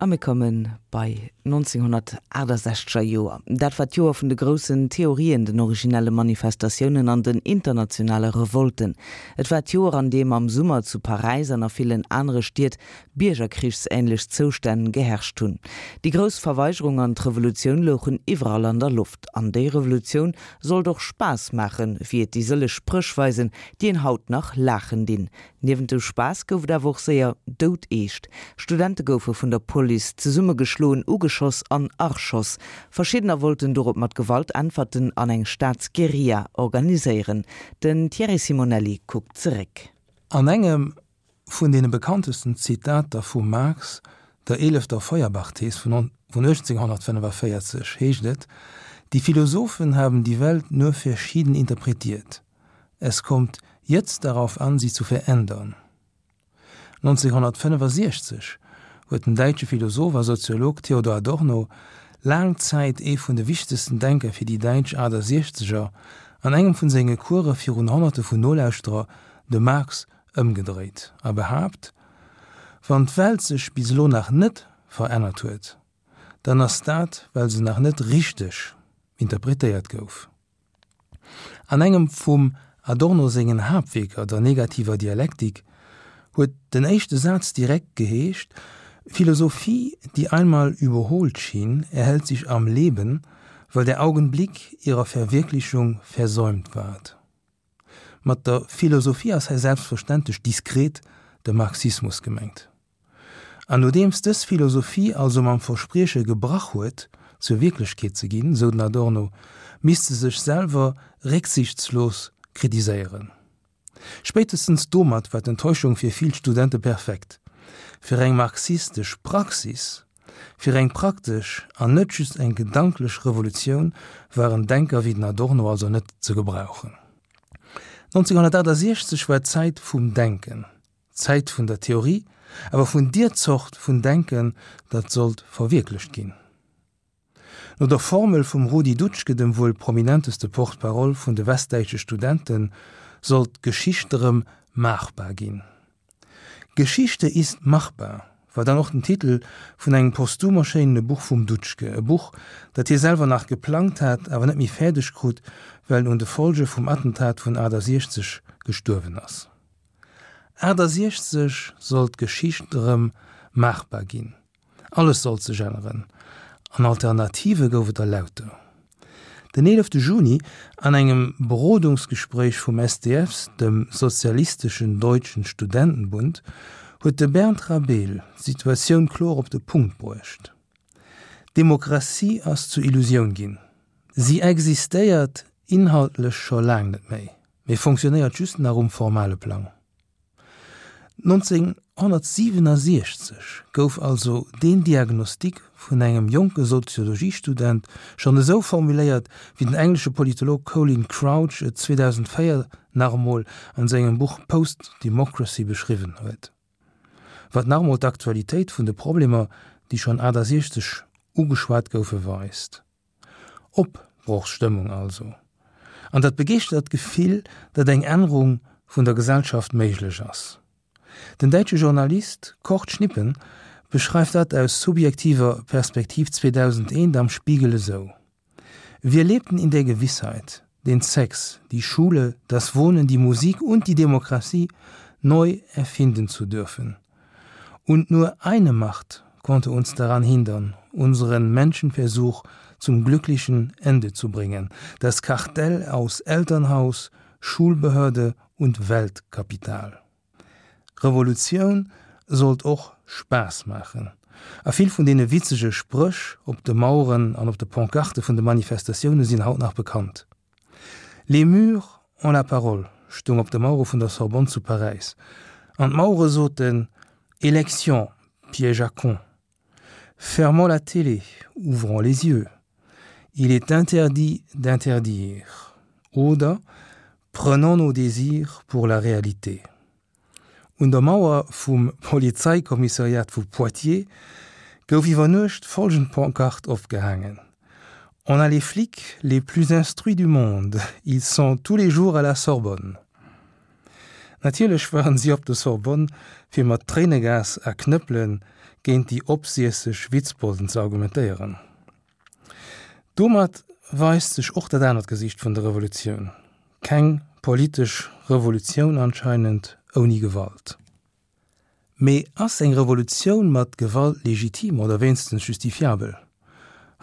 A mir komme bei 1968 er Joer. Dat war d'Joer vun de groussen Theorien, den originelle Manifestatiounen an den internationale Revolten. Et war d'Joer, an deem am Summer zu Paräis an a villen anere Stied biergerkrichsähnlech Zoustänn geherrscht hunn. Déi grouss Verweigerung an d'Revolutioun louchen iwwerall an der Loft. An déi Revolutioun sollt och Spaass maachen, wéi et déi sëlleg Spréch weisen, déi een haut nach laachen dinn. Niewent dem Spaass gouf et awer och séier doudeescht. Studente goufe vun der Police zesummegeschloen, ugeschoss an erschoss. Verschiddener wollten dorop mat Gewalt äntwerten an eng Staatsguerilla organiséieren. Den Thierry Simonelli kuckt zeréck. An engem vun deene bekanntesten Zitater vum Marx, der eelefter Feuerbach-Thees vun 1845, heescht et, Die Philosophen haben die Welt nur verschieden interpretiert. Es kommt jetzt darauf an, sie zu verändern. 1965 huet den däitsche Philosoph a Soziolog Theodor Adorno, laang Zäit ee vun de wichtegsten Denker fir déi däitsch Achtasiechzeger, an engem vun senge Course virun Honnerte vun Nolauschterer de Marx ëmgedréit a behaapt, Wann d'Welt sech bis elo nach net verännert huet, dann ass dat, well se nach net richteg interpretéiert gouf. An engem vum Adorno sengen Haaptwierker, der Negativer Dialektik, huet den éischte Saz direkt geheescht, Philosophie, die einmal überholt schien, erhält sich am Leben, weil der Augenblick ihrer Verwirklichung versäumt ward. Mat der Philosophie ass hei selbstverständlech diskret de Marxismus gemengt. An nodeems dës Philosophie also mam Versprieche gebrach huet, zur Wierklechkeet ze ginn, sou den Adorno, misst se sech selwer récksichtslos kritiséieren. Spéitestens domat war d'Enttäuschung fir vill Studente perfekt. Fir eng marxistesch Praxis, fir eng praktesch an net just eng gedanklech Revolutioun waren Denker wéi den Adorno also net ze gebrauchen. 1968 war d'Zäit vum Denken. D'Zäit vun der Theorie, awer vun dier Zort vun Denken, dat sollt verwierklecht ginn. No der Formel vum Rudi Dutschke, dem wuel prominenteste Porte-parole vun de westdäitsche Studenten, sollt d'Geschicht erëm maachbar ginn. Geschichte ist machbar war dann och den Titel vun engem posthum erschéinene Buch vum Dutschke, e Buch, dat hie selwer nach geplangt hat, awer net méi fäerdeg krut, well en un de Folge vum Attentat vun 68 gestuerwen ass. 68 sollt d'Geschicht erëm maachbar ginn, alles sollt sech änneren an Alternative gouf et der lauter. Den 11 Juni, an engem Berodungsgespréich vum SDFs, dem Sozialistischen Deutschen Studentenbund, huet de Bernd Rabel d'Situatioun kloer op de Punkt bruecht, D'Demokratie ass zur Illusioun ginn. Si existéiert inhaltlech scho laang net méi. Mee fonctionnéiert just nach um formale Plang. 1967 gouf also deen Diagnostic vun engem jonke Soziologiestudent schonn esou formuléiert, wéi den englesche Politolog Colin Crouch et 2004 nach emol an sengem Buch Post-Democracy beschriwwen huet. Wat nach emol d'Aktualitéit vun de Problemer, déi schonn 68 ugeschwat goufe, weist. Opbrochsstëmmung also, an dat begeeschtert Gefill, datt eng Ännerung vun der Gesellschaft méiglech ass. Den däitsche Journalist Kurt Schnippen beschreift dat aus subjektiver Perspektiv 2001 am Spiegel esou, Wir lebten in der Gewissheit, den Sex, die Schule, das Wohnen, die Musik und die Demokratie neu erfinden zu dürfen. Und nur eine Macht konnte uns daran hindern, unseren Menschenversuch zum glücklichen Ende zu bringen, das Kartell aus Elternhaus, Schulbehörde und Weltkapital. Revolutioun sollt och Spaass maachen, a vill vun deene witzege Spréch op de Maueren an op de Pancarte vun de Manifestatioune sinn haut nach bekannt. Les murs ont la parole stoung op de Mauere vun der Sorbonne zu Paräis, an d'Mauere soten, Élections, piège à cons. Fermons la télé, ouvrons les yeux. Il est interdit d'interdire. Oder Prenons nos désirs pour la réalité. Un der Mauer vum Polizeikommissariat vu Poitiers gouf iwwer Nuecht folgend Pancarte opgehaangen, On a les flics les plus instruits du monde, ils sont tous les jours à la Sorbonne. Natierlech waren si op der Sorbonne fir mat Tréinegas a Knëppele. géint déi opsiesseg Witzbolden ze argumentéieren. Domat weist sech och dat anert Gesiicht vun der Revolutioun, keng politesch Revolutioun anscheinend ouni Gewalt. Mee ass eng Revolutioun mat Gewalt legitim oder wéinstens justifiabel?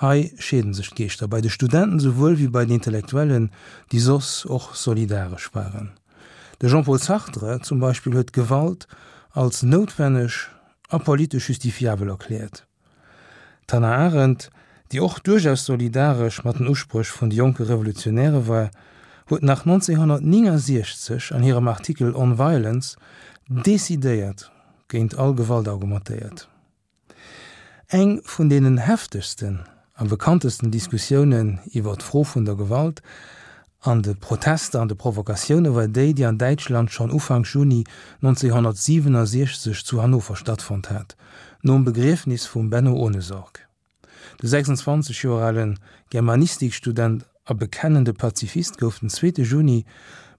Hei scheeden sech d'Geeschter, bei de Studenten souwuel wéi bei den Intellektuellen, déi soss och solidaresch waren. De Jean-Paul Sartre zum Beispill huet d'Gewalt als noutwenneg a politesch justifiabel erkläert. D'Hannah Arendt, déi och duerchaus solidaresch mat den Uspréch vun de jonke Revolutionäre war, huet nach 1969 an hirem Artikel On Violence decidéiert géint all Gewalt argumentéiert. Eng vun deenen heftegsten a bekanntesten Diskussiounen iwwer d'Fro vun der Gewalt an de Protester an de Provokatioune war déi, déi an Däitschland schonn Ufank Juni 1967 zu Hannover stattfonnt hat, nom Begriefnis vum Benno Ohnesorg. De 26 Joer ale Germanistikstudent a bekennende Pazifist gouf den zweete Juni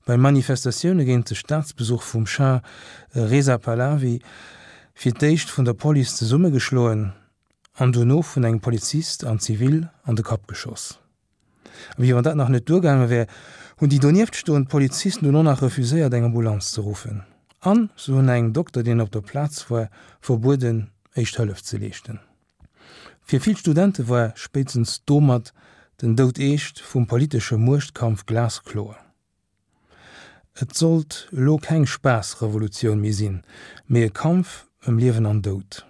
bei Manifestatioune géint de Staatsbesuch vum Schah Reza Pahlavi fir d'éischt vun der Police zesummegeschloen an dono vun engem Polizist an Zivil an de Kapp geschoss. A wéi wann dat nach net duergaange wär, hunn déi donieft stoend Polizisten dunn och nach refuséiert, eng Ambulanz ze ruffen. An se hunn engem Dokter, deen op der Plaz war, verbueden, éischt Hëllef ze leeschten. Fir vill Studente war spéitstens domat den Doudeescht vum politesche Muechtkampf glaskloer. Et sollt elo keng Spaassrevolutioun méi sinn, mee e Kampf ëm Liewen an Doud.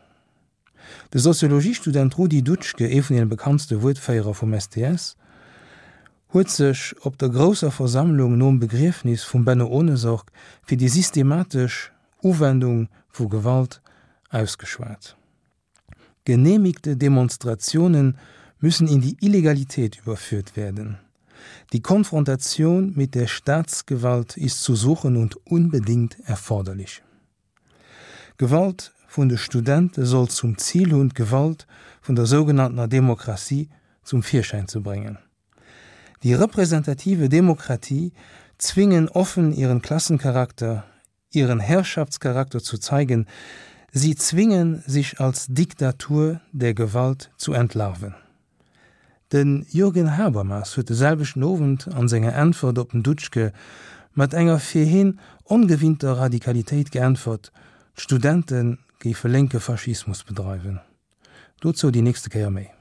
De Soziologiestudent Rudi Dutschke, ee vun deene bekanntste Wuertféierer vum STS, huet sech op der grousser Versammlung nom Begriefnis vum Benno Ohnesorg fir déi systematesch Uwendung vu Gewalt ausgeschwat. Genehmigte Demonstrationen müssen in die Illegalität überführt werden. Die Konfrontation mit der Staatsgewalt ist zu suchen und unbedingt erforderlich. Gewalt vun de Studente soll zum Zil hunn, d'Gewalt vun der sougenanntener Demokratie zum Virschäin ze bréngen. Die repräsentative Demokratie zwingen offen ihren Klassencharakter, ihren Herrschaftscharakter zu zeigen, sie zwingen, sich als Diktatur der Gewalt zu entlarven. De Jürgen Habermas huet de selwechten Owend an senger Äntwert op den Dutschke mat enger fir hien ongewinnter Radikalitéit geäntwert, d'Studente géife lénke Faschismus bedreiwen. Dozou déi nächste Kéier méi.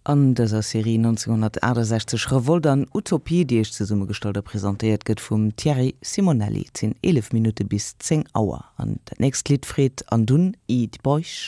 An dëser Serie 1968, Revolt an Utopie, déi Iech zesummegestallt a presentéiert gëtt vum Thierry Simonelli. Et sinn 11 Minutte bis 10 Auer an dat nächst Lidd freet an dunn Eat Boich.